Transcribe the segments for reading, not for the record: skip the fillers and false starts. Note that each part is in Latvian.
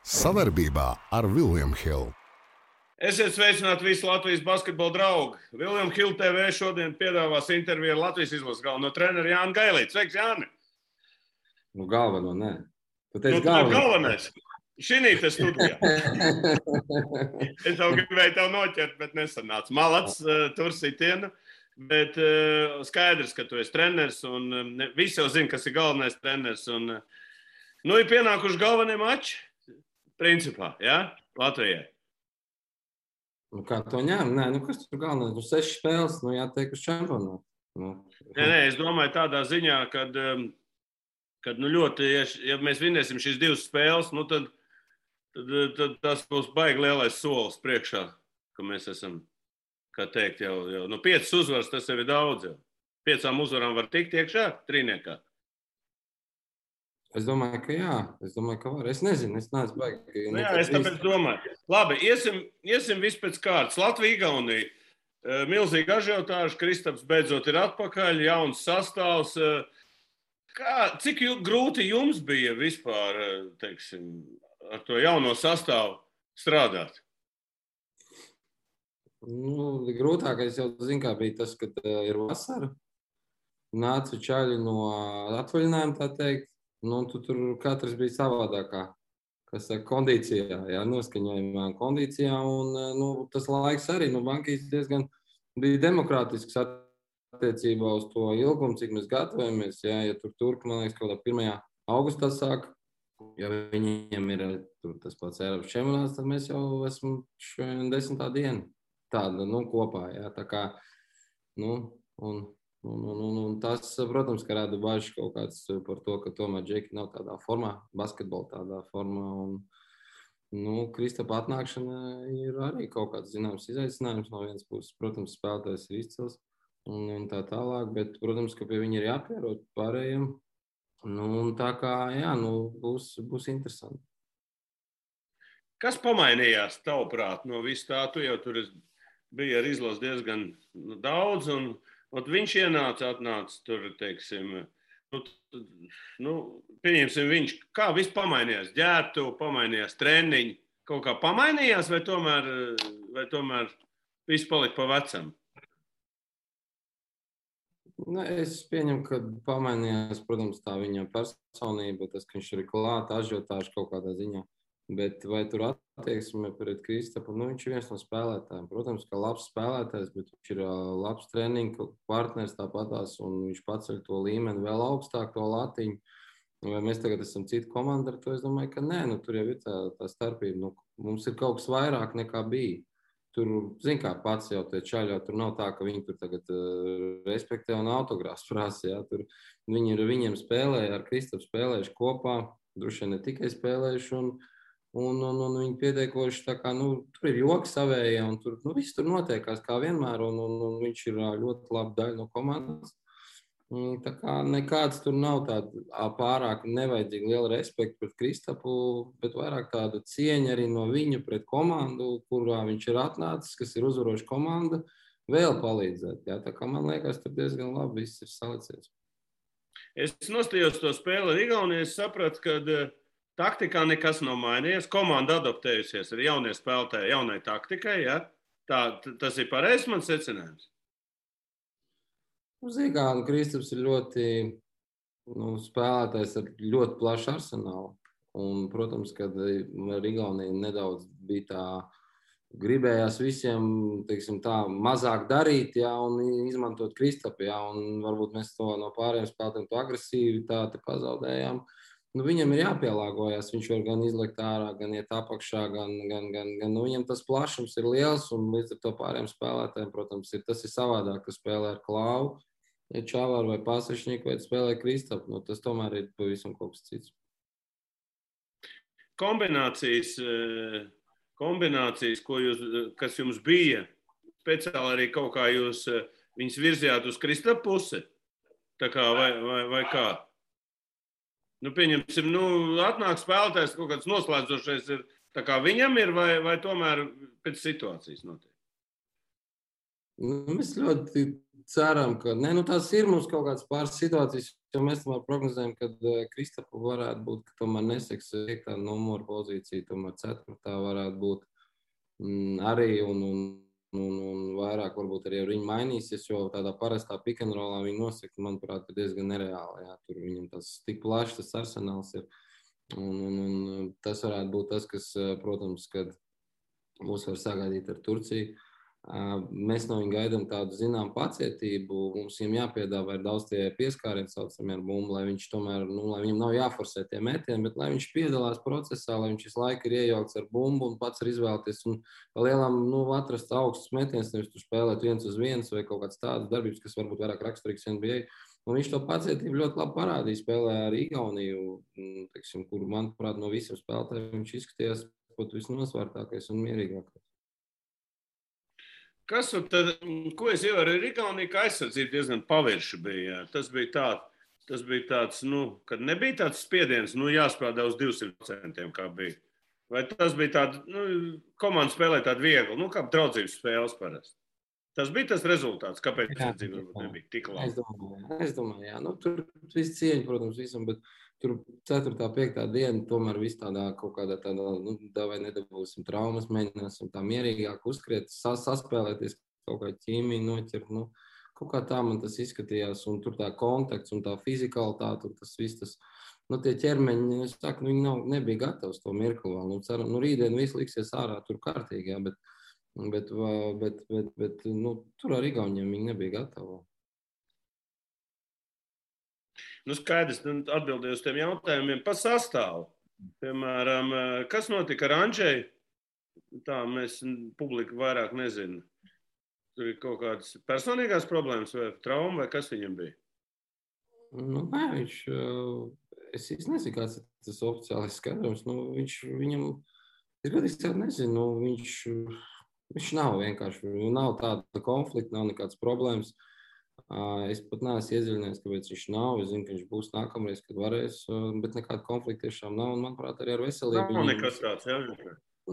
Sadarbībā ar William Hill. Esiet sveicināti visi Latvijas basketbola draugi. William Hill TV šodien piedāvās interviju ar Latvijas izlases galveno treneru Jānu Gailīti. Sveiks, Jāni! Nu, galveno, nē. Tu teici galvenais. Šinī te studijā. Es jau gribēju tev noķert, bet nesanāca. Malats, tur sitiena. Bet skaidrs, ka tu esi treneris un visi jau zina, kas ir galvenais treneris. Un, ir pienākuši galvenie mači, principā, ja? Latvijai. Nu, kā to ņem? Nē, kas tur galvenais? 6 spēles, jātiek uz čempionātu. Nē, es domāju tādā ziņā, kad ļoti, ja mēs vinēsim šīs 2 spēles, tad tas būs baigi lielais solis priekšā, ka mēs esam, kā teikt, jau 5 uzvaras, tas jau ir daudz. Jau. 5 uzvarām var tikt iekšā, trīniekā. Es domāju, ka jā. Es domāju, ka var. Es nezinu, es neesmu baigi. Jā, es tāpēc domāju. Labi, iesim viss pēc kārtas. Latvija, Igaunija. Milzīgi ažiotāži, Kristaps beidzot ir atpakaļ, jauns sastāvs. Cik grūti jums bija vispār, teiksim, ar to jauno sastāvu strādāt? Grūtākais jau zinu, kā bija tas, kad ir vasara. Nāca čaļi no atvaļinājuma, tā teikt. Tur katrs bija savādākā, kas kondīcijā, noskaņojumā kondīcijā. Un tas laiks arī, Bankīs diezgan bija demokrātisks attiecībā uz to ilgumu, cik mēs gatavojamies. Ja turki, man liekas, kaut kādā 1. augustā sāk, ja viņiem ir tas pats Eiropas čempionāts, tad mēs jau esam 10. diena tāda, kopā. Ja, tā kā, un tas, protams, ka rada bažas kaut kāds par to, ka tomēr Džeki nav tādā formā, basketbola tādā formā. Un, Kristapa atnākšana ir arī kaut kāds zināms izaicinājums. No vienas puses, protams, spēlētājs ir izcils un tā tālāk, bet, protams, ka pie viņa ir jāpierod pārējiem. Tā kā, būs interesanti. Kas pamainījās tavuprāt no visu tā? Tu jau tur biji ar izlasi diezgan daudz un viņš atnāca tur, teiksim, pieņemsim viņš, kā viss pamainījās, ģērbtu, pamainījās treniņi, kaut kā pamainījās vai tomēr viss palika pa vecam? Es pieņemu, ka pamainījās, protams, tā viņa personība, tas, ka viņš ir klāt, ažiotāži kaut kādā ziņā. Bet vai tur attieksme pret Kristapu? Viņš ir viens no spēlētājiem. Protams, ka labs spēlētājs, bet viņš ir labs treniņu partners tāpatās, un viņš paceļ to līmeni vēl augstāk, to latiņu. Vai mēs tagad esam cita komanda ar to? Es domāju, ka nē, tur jau ir tā starpība. Mums ir kaut kas vairāk nekā bija. Tur, kā pats jau tie čaļi, tur nav tā, ka viņi tur tagad respektē un autogrāfs prasa. Ja? Tur viņi ir viņiem spēlēja, ar Kristapu spēlējuši kopā, droši vien ne tikai spēlējuši, un viņi pieteikoši, tā kā, tur ir joki savējie, un tur, viss tur notiekās kā vienmēr, un viņš ir ļoti laba daļa no komandas. Tā kā nekāds tur nav tāda pārāk nevajadzīga liela respekta pret Kristapu, bet vairāk tāda cieņa arī no viņa pret komandu, kurā viņš ir atnācis, kas ir uzvaroša komanda, vēl palīdzēt. Ja? Tā kā man liekas, tur diezgan labi viss ir salicies. Es nostājos to spēli ar Igauniju, es sapratu, ka taktikā nekas nav mainījies. Komanda adaptējusies ar jaunie spēlētāji, jaunai taktikai. Ja? Tas ir pareizs mans secinājums. Kristaps ir ļoti spēlētājs ar ļoti plašu arsenālu. Un, protams, kad ar Igauniju nedaudz bija tā, gribējās visiem, teiksim tā, mazāk darīt, ja, un izmantot Kristapu. Ja, un varbūt mēs to no pārējiem spēlētājiem to agresivitāti pazaudējām. Viņam ir jāpielāgojas, viņš var gan izlikt ārā, gan iet apakšā, gan viņam tas plašums ir liels, un līdz ar to pārējiem spēlētājiem, protams, tas ir savādāk, ka spēlē ar Klāvu, Čavaru vai Pasašņiku, vai spēlē Kristapu, tas tomēr ir pavisam kaut kas cits. Kombinācijas, kas jums bija, speciāli arī kaut kā jūs viņus virzījāt uz Kristapu pusi, tā kā vai kā? Pieņemsim, atnāk spēlētājs, kaut kāds noslēdzošais ir, tā kā viņam ir, vai tomēr pēc situācijas notiek? Mēs ļoti ceram, ka tās ir mums kaut kādas pāris situācijas, jo mēs tomēr prognozējam, ka Kristapa varētu būt, ka tomēr neseks 5. numura pozīcija, tomēr 4. varētu būt arī un vairāk varbūt arī viņi mainīsies, jo tādā parastā pick and rollā viņi nosaka, manuprāt, diezgan nereāli. Jā, tur viņam tas tik plašs tas arsenāls ir. Un tas varētu būt tas, kas, protams, kad mūs var sagaidīt ar Turciju. Mēs no viņa gaidām tādu zinām pacietību. Mums viņam jāpiedāvā daudz tie pieskārieni saucamie ar bumbu, lai viņš tomēr, lai viņam nav jāforsē tie metieni, bet lai viņš piedalās procesā, lai viņš visu laiku ir iejaukts ar bumbu un pats var izvēlēties un lielām, atrast augstus metienus, nevis tur spēlēt 1-1 vai kaut kāds tādas darbības, kas varbūt vairāk raksturīgs NBA. Un viņš to pacietību ļoti labi parādīja, spēlē ar Igauniju, teiksim, kur, manuprāt, no visiem spēlētājiem viņš izskatījās pat visnosvērtākais un mierīgākais. Ko es ievēroju ar Igauniju, ka aizsardzība diezgan pavirša bija. Tas bija tāds, kad nebija tāds spiediens, jāspēlē uz 200%, kā bija. Vai tas bija tāds, komanda spēlē tādu vieglu, kā draudzības spēles parasti. Tas bija tas rezultāts, kāpēc aizsardzība nebija tik laba. Es domāju, jā. Tur viss cieņa, protams, visam, bet tur 4. 5. diena tomēr viss tādā kaut kādā vai nedabūsim traumas, mēģināsim tā mierīgāk uzskriet, saspēlēties kaut kā ķīmiju noķert, kaut kā tā man tas izskatījās, un tur tā kontakts un tā fizikalitāte, un tas viss, tie ķermeņi, es saku, viņi nebija gatavi to mirkli vēl, ceram, rītdien viss liksies ārā tur kārtīgi, jā, bet tur ar Igauniem viņi nebija gatavi. Skaidrs, atbildēju uz tiem jautājumiem par sastāvu. Piemēram, kas notika ar Andžeju? Tā mēs publika vairāk nezinu. Tur ir kaut kādas personīgās problēmas vai trauma, vai kas viņam bija? Nē, es nezinu, kāds ir tas oficiālais skaidrojums. Viņam, es godīgi nezinu, viņš nav vienkārši, nav tāda konflikta, nav nekādas problēmas. Es pat neesmu iedziļinājies, kāpēc viņš nav. Es zinu, ka viņš būs nākamreiz, kad varēs, bet nekāda konflikta tiešām nav. Un, manuprāt, arī ar veselību. Nav nekas tāds, jā?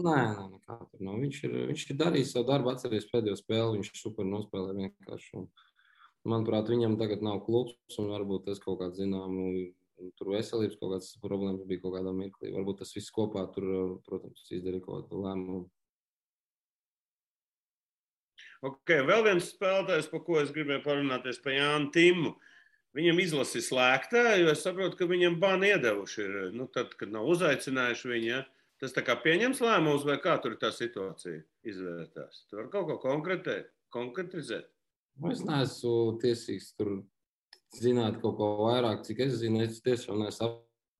Nē, nekā tur nav. Viņš ir darījis savu darbu, atceries pēdējo spēli, viņš super nospēlē vienkārši. Un, manuprāt, viņam tagad nav klubs, un varbūt tas kaut kāds zināmu, tur veselības kaut kāds problēmas bija kaut kādā mirklī. Varbūt tas viss kopā tur, protams, izdarīja kaut kādu lēmumu. Ok, vēl viens spēlētājs, par ko es gribēju parunāties, par Jānu Timmu. Viņam izlasi slēgtā, jo es saprotu, ka viņam bani iedevuši ir. Tad, kad nav uzaicinājuši viņu, ja? Tas tā kā pieņems lēmumus, vai kā tur tā situācija izvērtās? Tu vari kaut ko konkretizēt? Es neesmu tiesīgs tur zināt kaut ko vairāk, cik es zinu. Es tiešām neesmu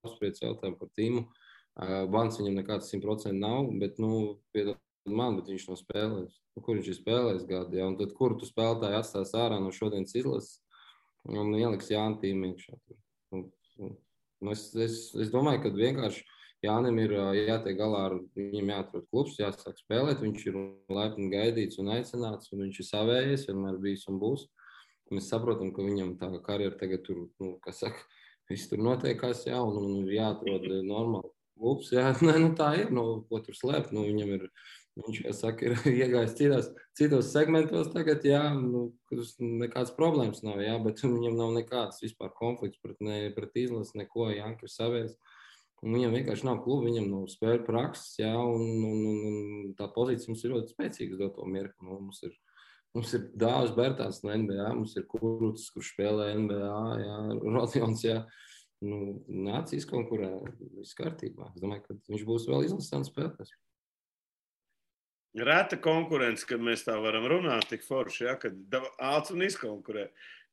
apspriedis jautājumu par Timmu. Bans viņam nekāds 100% nav, bet, bet viņš nav spēlējis. Kur viņš ir spēlējis gadu, ja? Un tad, kur tu spēlētāji atstās ārā no šodienas izlases un ieliks Jānu Timmu iekšā. Es domāju, ka vienkārši Jānim ir jātiek galā ar viņam jāatrod klubs, jāsāk spēlēt, viņš ir laipni gaidīts un aicināts, un viņš ir savējies, vienmēr bijis un būs. Mēs saprotam, ka viņam tā karjera tagad tur, viss tur notiekās, jā, un ir jāatrod normāli klubs, jā. Tā ir, ko tur slēpt, viņam ir. Viņš, kā saka, ir iegājis citos segmentos tagad, jā, kurus nekādas problēmas nav, jā, bet viņam nav nekāds vispār konflikts pret izlasi, neko, Janka ir savējis. Viņam vienkārši nav kluba, viņam nav spēļu prakses, jā, un tā pozīcija mums ir ļoti spēcīga uz doto mirkli. Mums ir Dāvis Bērtāns no NBA, mums ir Kurucis, kurš spēlē NBA, jā, Rodions, jā. Nāc izkonkurē, viss kārtībā. Es domāju, ka viņš būs vēl izlasāns spēlētājs. Reta konkurence, kad mēs tā varam runāt, tik forši, ja, kad āc un izkonkurē.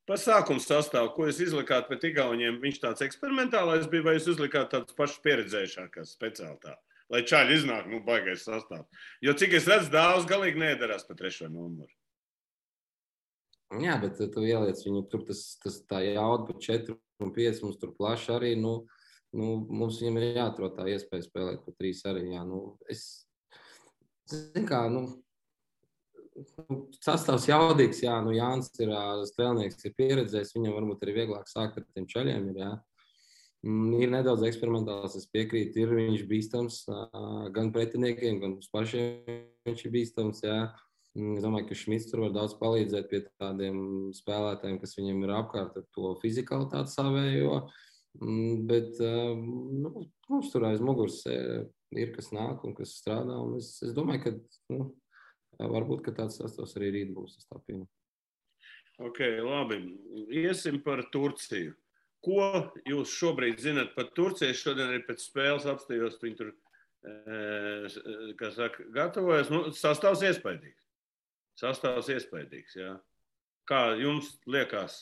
Par sākumu sastāvu, ko jūs izlikāt pret Igauniem, viņš tāds eksperimentālais bija, vai jūs izlikāt tāds pašs pieredzējušākās speciāli tā? Lai čaļi iznāk, baigais sastāvs. Jo cik es redzu, Dāvs galīgi nedarās pa 3. numuru. Jā, bet tu ieliec viņu, tur tā jauda pa 4 un 5, mums tur plaši arī, mums viņam ir jāatrod tā iespēja spēlēt pa 3 arī, jā, Zin kā, sastāvs jaudīgs, jā, Jānis ir strēlnieks, ir pieredzējis, viņam varbūt arī vieglāk sākt ar tiem čaļiem, jā. Ir nedaudz eksperimentāls, es piekrītu, viņš bīstams gan pretiniekiem, gan mums pašiem viņš ir bīstams, jā. Es domāju, ka Šmits tur var daudz palīdzēt pie tādiem spēlētājiem, kas viņiem ir apkārt ar to fizikalitāti savējo. Bet mums tur aiz muguras ir, kas nāk un kas strādā. Un es domāju, ka varbūt ka tāds sastāvs arī rīt būs. Es tā pieņemu. Ok, labi. Iesim par Turciju. Ko jūs šobrīd zināt par Turciju? Šodien arī pēc spēles apstājos, viņi tur, kā saka, gatavojas. Sastāvs iespaidīgs. Sastāvs iespaidīgs, jā. Kā jums liekas,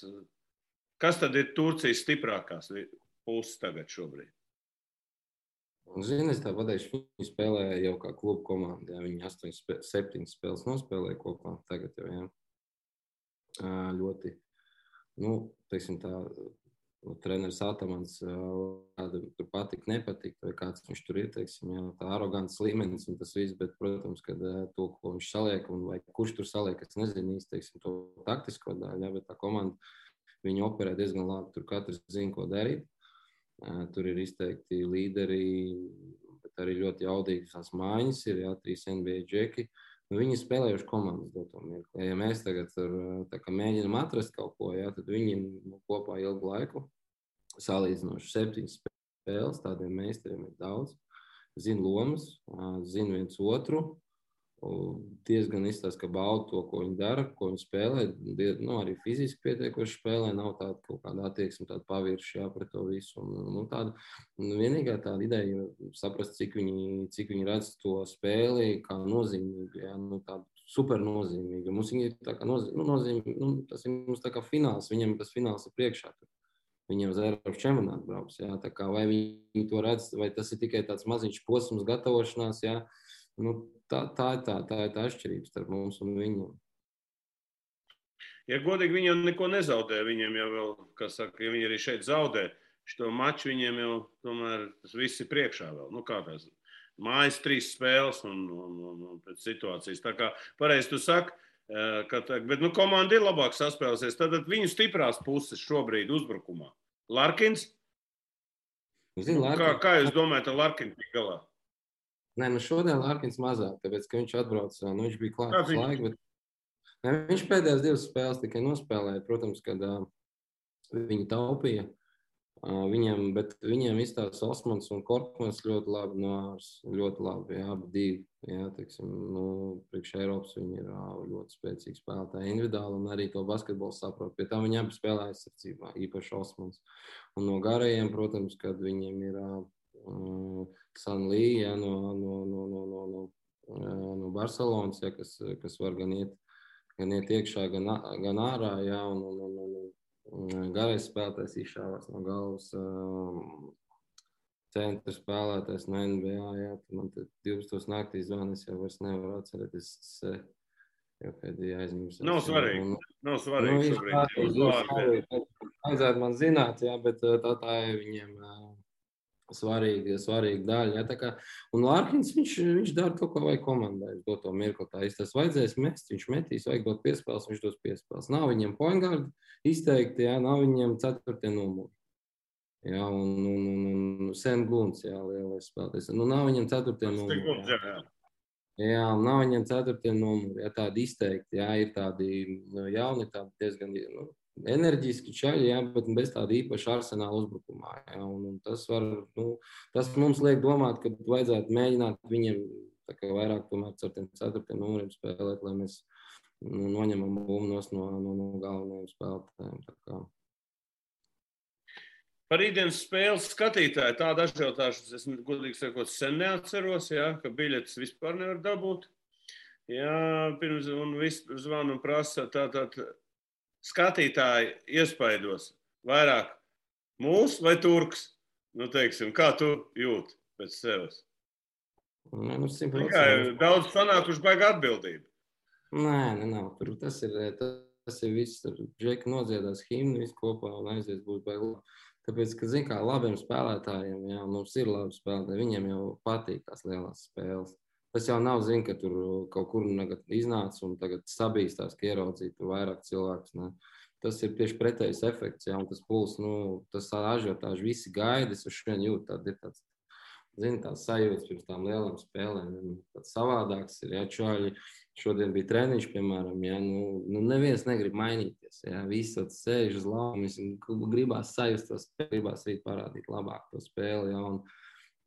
kas tad ir Turcijas stiprākās puses tagad šobrīd? Zini, es tā pateikšu, viņi spēlēja jau kā klubu komanda. Jā. Viņi 7 spēles nospēlēja kopā tagad jau, jā. Ļoti, teiksim tā, treneris Atamans tur patīk, nepatīk, vai kāds viņš tur ir, teiksim, jā, tā arogants līmenis un tas viss, bet, protams, kad to, ko viņš saliek, un vai kurš tur saliek, es nezinu īsti, teiksim, to taktisko daļu, jā, bet tā komanda, viņi operē diezgan labi, tur katrs zina, ko darīt, tur ir izteikti līderi, bet arī ļoti jaudīgas tās mājas ir, jā, 3 NBA džeki, viņi spēlējuši komandas doto mirkli. Ja mēs tagad tā kā mēģinām atrast kaut ko, jā, tad viņi kopā ilgu laiku salīdzinoši 7 spēles, tādiem meistariem ir daudz. Zina lomas, zina viens otru, diezgan izstāsta, ka bauda to, ko viņi dara, ko viņi spēlē, arī fiziski pietiekoši spēlē, nav tāda kaut kāda attieksme, tāda pavirši, jā, pret to visu. Vienīgā tāda ideja saprast, cik viņi redz to spēli kā nozīmīgu, jā, tādu super nozīmīgu. Mums viņi ir tā kā nozīmīgi, tas ir mums tā kā fināls, viņiem tas fināls ir priekšā. Viņiem uz Eiropas čempionātu brauks, jā, tā kā vai viņi to redz, vai tas ir tikai tāds maziņš posms gatavošanās, jā, tā ir tā atšķirība starp mums un viņiem. Ja godīgi, viņi jau neko nezaudē. Viņiem jau vēl, kā saka, ja viņi arī šeit zaudē, šo maču viņiem jau tomēr tas viss ir priekšā vēl. Kā tās mājas 3 spēles un pēc situācijas. Tā kā pareizi tu saki, bet komanda ir labāk saspēlēsies. Tad viņu stiprās puses šobrīd uzbrukumā. Larkins? Kā jūs domājat, ar Larkinu tik galā? Nē, šodien Larkins mazāk, tāpēc, ka viņš atbrauca, viņš bija klāts laiku, bet viņš pēdējās 2 spēles tikai nospēlēja, protams, kad viņi taupīja bet viņiem izstāsta Osmans un Korkmans ļoti labi noārs, ļoti labi, jā, abi 2, jā, teiksim, priekš Eiropas viņi ir ļoti spēcīgi spēlētāji individuāli un arī to basketbolu saprot, pie tā viņi abi spēlē aizsardzībā, īpaši Osmans. Un no garajiem, protams, kad viņiem ir Sanlī, jā, no Barcelonas, jā, kas var gan iet iekšā, gan ārā, jā, un garais spēlētājs izšāvās no galvas, centra spēlētājs no NBA, jā, man te 12 naktī zvan, es jau vairs nevaru atcerēties, jau pēdējā aizmirst. Nav svarīgi šobrīd. Vajadzētu man zināt, jā, bet tā ir viņiem svarīga daļa. Ja, kā, un Larkins, viņš dara to, ko vajag komandai. To mirkli tā tas vajadzēs mest, viņš metīs, vajag dot piespēles, viņš dos piespēles. Nav viņiem point guard izteikti, ja, nav viņiem 4. numuri. Ja, un Sam Glunts, jā, lielais spēlētājs. Nav viņiem 4. numuri. Jā, nav viņiem 4. numuri. Ja, tādi izteikti, jā, ir tādi jauni, tādi diezgan enerģiski čaļi, jā, bet bez tāda īpaša arsenāla uzbrukumā. Jā, un tas mums liek domāt, ka vajadzētu mēģināt viņiem vairāk tomēr ar tiem 4. numuriem spēlēt, lai mēs noņemam bumnos no galvenajiem spēlētājiem. Par rītdienas spēles skatītāju tādu ažiotāžu es godīgi sakot sen neatceros, jā, ka biļetes vispār nevar dabūt. Jā, pirms un viss zvanu un prasa tātad skatītāji iespaidos vairāk mūs vai turks? Teiksim, kā tu jūti pēc sevis? Daudz sanākuši baigi atbildību. Nē, nav. Tas ir viss. Džeki nodziedās himnu, viss kopā un aizies būs baigi. Tāpēc, ka, zin kā, labiem spēlētājiem, jā, mums ir labi spēlētāji, viņiem jau patīk tās lielās spēles. Tas jau nav, zin, ka tur kaut kur iznāca un tagad sabīstās, ka ieraudzīja tur vairāk cilvēkus. Ne. Tas ir tieši pretējs efekts, jā, un tas puls, tas ažiotāži visi gaida, es uz šodien jūtu, tāda ir tāds zini, tās sajūtas pirms tām lielām spēlēm. Tāds savādāks ir, ja čaļi šodien bija treniņš, piemēram, ja, nu neviens negrib mainīties, ja, visi sēž uz laumas, gribās sajust to spēli, gribās arī parādīt labāk to spēli, ja,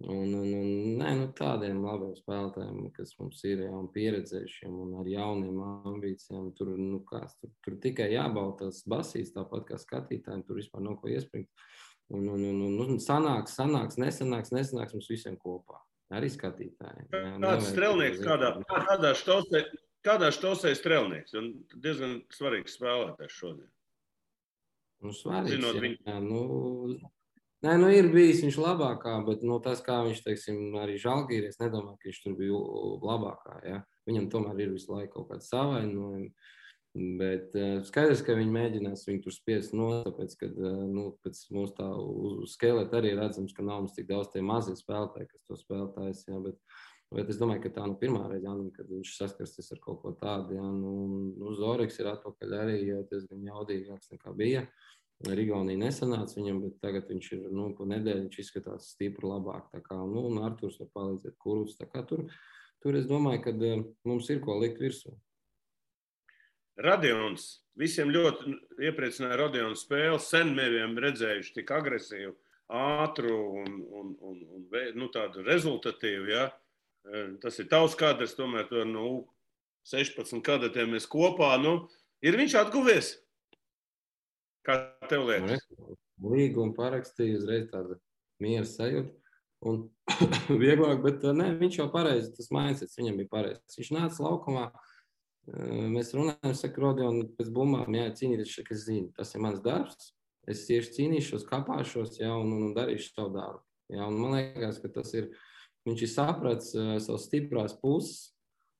nē, nu tādiem labiem spēlētājiem, kas mums ir, ja, un pieredzējušiem, un ar jauniem ambīcijām, tur tikai jābauda tās basīs, tāpat kā skatītājiem, tur vispār nav ko iespringt. Un sanāks, nesanāks mums visiem kopā. Arī skatītājiem. Kāds strelnieks, kādā štosē strelnieks? Un diezgan svarīgs spēlētājs šodien. Nu, svarīgs, jā. Nē, ir bijis viņš labākā, bet tas, kā viņš, teiksim, arī Žalgīri, es nedomāju, ka viņš tur bija labākā. Ja? Viņam tomēr ir visu laiku kaut kāds savainojumi. Bet skaidrs, ka viņi mēģinās viņu tur spiest tāpēc, ka pēc mūsu tā skeleta arī redzams, ka nav mums tik daudz tie mazie spēlētāji, kas to spēlētājs, jā, bet es domāju, ka tā pirmā reize, kad viņš saskarsties ar kaut ko tādu, jā, Zoriks ir atpakaļ arī, jā, diezgan jaudīgāks nekā bija. Rigaunija nesanāca viņam, bet tagad viņš ir, pa nedēļu viņš izskatās stipri labāk, tā kā, un Arturs var palīdzēt Kuruts, tā kā tur es domāju, ka mums ir ko likt virsū. Radions. Visiem ļoti iepriecināja Radiona spēle. Sen mēs redzējuši tik agresīvu, ātru un tādu rezultatīvu. Ja? Tas ir tavs kadrs, tomēr to 16 kadetiem mēs kopā. Ir viņš atguvies? Kā tev liekas? Līgumu parakstīja, uzreiz tāda miera sajūta. Un vieglāk, bet ne, viņš jau pareizi, tas mindsets viņam bija pareizi. Viņš nāca laukumā. Mēs runājam, saka, Rodion, pēc bumbām, jā, cīnīties, ka es zinu, tas ir mans darbs, es tieši cīnīšos, kapāšos, jā, un darīšu savu darbu. Jā, un man liekas, ka tas ir, viņš ir saprats savas stiprās puses,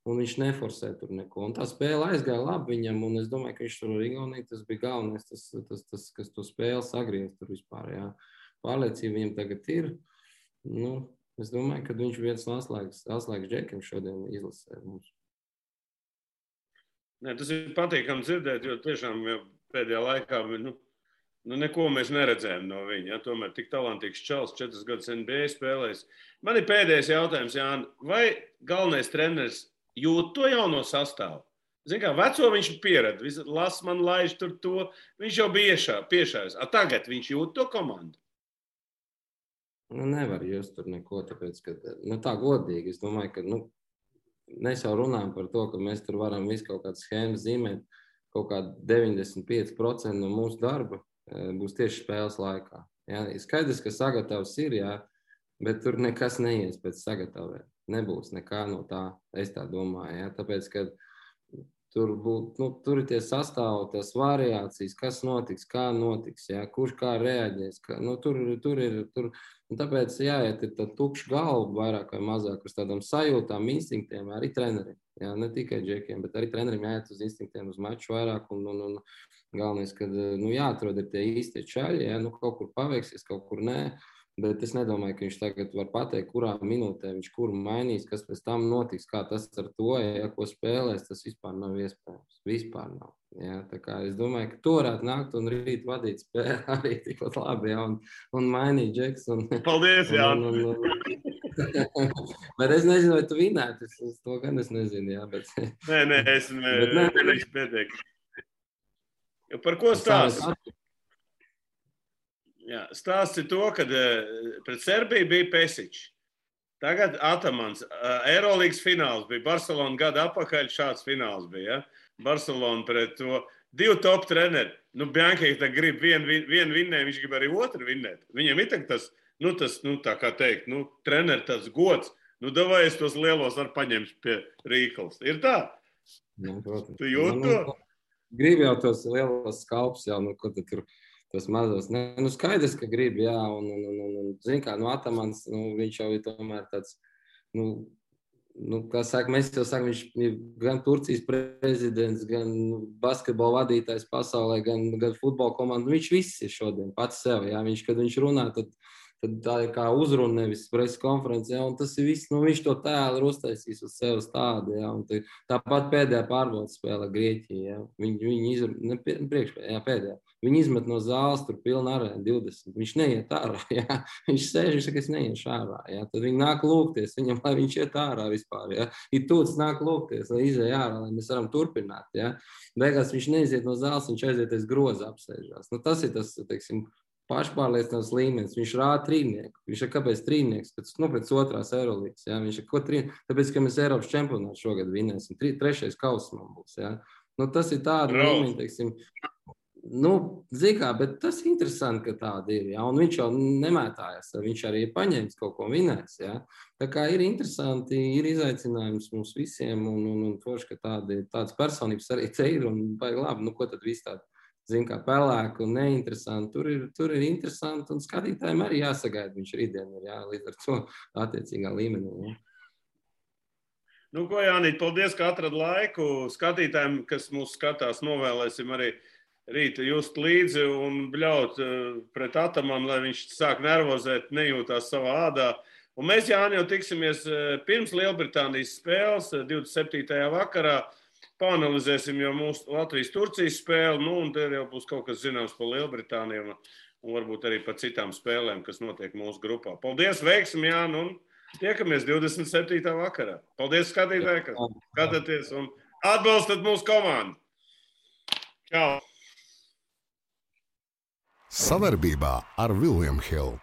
un viņš neforsē tur neko. Un tā spēle aizgāja labi viņam, un es domāju, ka viņš tur ar Igauniju, tas bija galvenais, tas kas to spēli sagriez tur vispār, jā. Pārliecība viņam tagad ir, es domāju, ka viņš viens no atslēgas džekiem šodien izlasē mums. Nē, tas ir patīkami dzirdēt, jo tiešām pēdējā laikā neko mēs neredzējām no viņa. Ja? Tomēr tik talantīgs čalis, 4 gadus NBA spēlējis. Man ir pēdējais jautājums, Jāni. Vai galvenais treneris jūt to jauno sastāvu? Zini kā, veco viņš pieredz, las man laiž tur to. Viņš jau bija piešājis. Tagad viņš jūt to komandu? Nevar just tur neko, tāpēc, ka tā godīgi. Es domāju, ka mēs jau runājam par to, ka mēs tur varam visu kaut kādu schēmu zīmēt, kaut kā 95% no mūsu darba būs tieši spēles laikā. Ja? Skaidrs, ka sagatavs ir, jā, bet tur nekas neies pēc sagatavē. Nebūs nekā no tā, es tā domāju. Ja? Tāpēc, ka tur ir tie sastāvi, tās variācijas, kas notiks, kā notiks, ja? Kurš kā reaģēs. Tur ir. Un tāpēc jāiet ir tā tukša galva vairāk vai mazāk uz tādām sajūtām, instinktiem, arī treneriem. Jā, ne tikai džekiem, bet arī treneriem jāiet uz instinktiem, uz maču vairāk. Un galvenais, ka jāatrod ir tie īstie čaļi, ja? Kaut kur paveiksies, kaut kur nē. Bet es nedomāju, ka viņš tagad var pateikt, kurā minūtē viņš kuru mainīs, kas pēc tam notiks, kā tas ar to, ja ko spēlēs, tas vispār nav iespējams. Vispār nav. Ja? Tā kā es domāju, ka to varētu nākt un rīt vadīt spēli arī tikpat labi, ja? un mainīt džeks. Paldies, Jāni! Bet es nezinu, vai tu vinētu, to gan es nezinu, jā. Bet... Nē, es nedarīšu pietiek. Par ko stāsti? Jā, stāsts ir to, ka pret Serbiju bija Pesičs. Tagad Atamans. Eirolīgas fināls bija. Barcelona gada apakaļ šāds fināls bija. Ja? Barcelona pret to 2 top treneri. Bianchi grib vienu vinnēt, viņš grib arī otru vinnēt. Viņam ir tas, tā kā teikt, treneri tas gods. Davai es tos lielos var paņemt pie Rīkals. Ir tā? Protams. Tu jūt to? Grib jau tos lielos skalpus jau, ko tad tur... Tas mazos. Skaidrs, ka grib, jā, un zin kā, Atamans, viņš jau ir tomēr tāds, kā saka, mēs jau sakam, viņš ir gan Turcijas prezidents, gan basketbola vadītājs pasaulē, gan futbola komanda, viņš viss ir šodien pats sev, jā, kad viņš runā, tad tad tā ir kā uzruna, nevis presa konference, ja, un tas ir viss, nu, viņš to tēlu ir uztaisījis uz sevis tādu, ja, un tāpat pēdējā pārbaudas spēlē Grieķija, ja, viņi izmet no zāles, tur pilna arēna 20, viņš neiet ārā, ja, viņš sēž, viņš saka, es neiešu ārā, ja, tad viņi nāk lūgties viņam, lai viņš iet ārā vispār, ja, ir tūts nāk lūgties, lai izēj ārā, lai mēs varam turpināt, ja, beigās viņš neiziet no zāles, viņš aiziet aiz groza apsēžās, nu, tas ir tas, teiksim, pašpārliecināts līmenis, viņš rāda trīnieku, viņš ir kāpēc trīnieks, pēc otrās Eirolīgas, ja, viņš ir ko trīnieks, tāpēc, ka mēs Eiropas čempionātu šogad vinēsim, trešais kauss man būs, ja, nu, tas ir tāda līmeņa, teiksim, nu, zikā, bet tas ir interesanti, ka tāda ir, ja, un viņš jau nemētājas, viņš arī ir paņēmis kaut ko vinēs, ja, tā kā ir interesanti, ir izaicinājums mums visiem, un forši, ka tādas personības arī te ir, un baigi labi, nu, ko tad viss tāda, zin kā pelēku un neinteresanti, tur ir interesanti, un skatītājiem arī jāsagaida, viņš rītdien ir, jā, līdz ar to attiecīgā līmenī, jā. Nu, ko, Jānīt, paldies, ka atrad laiku. Skatītājiem, kas mūs skatās, novēlēsim arī rīta just līdzi un bļaut pret Atamanu, lai viņš sāk nervozēt, nejūtās savā ādā. Un mēs, Jāni, jau tiksimies pirms Lielbritānijas spēles 27. vakarā. Pāanalizēsim jau mūsu Latvijas-Turcijas spēli, nu, un te jau būs kaut kas zināms par Lielbritāniju un varbūt arī par citām spēlēm, kas notiek mūsu grupā. Paldies, veiksim, Jāni, un tiekamies 27. vakarā. Paldies, skatītāji, ka skatāties un atbalstat mūsu komandu. Čau! Savarbībā ar William Hill.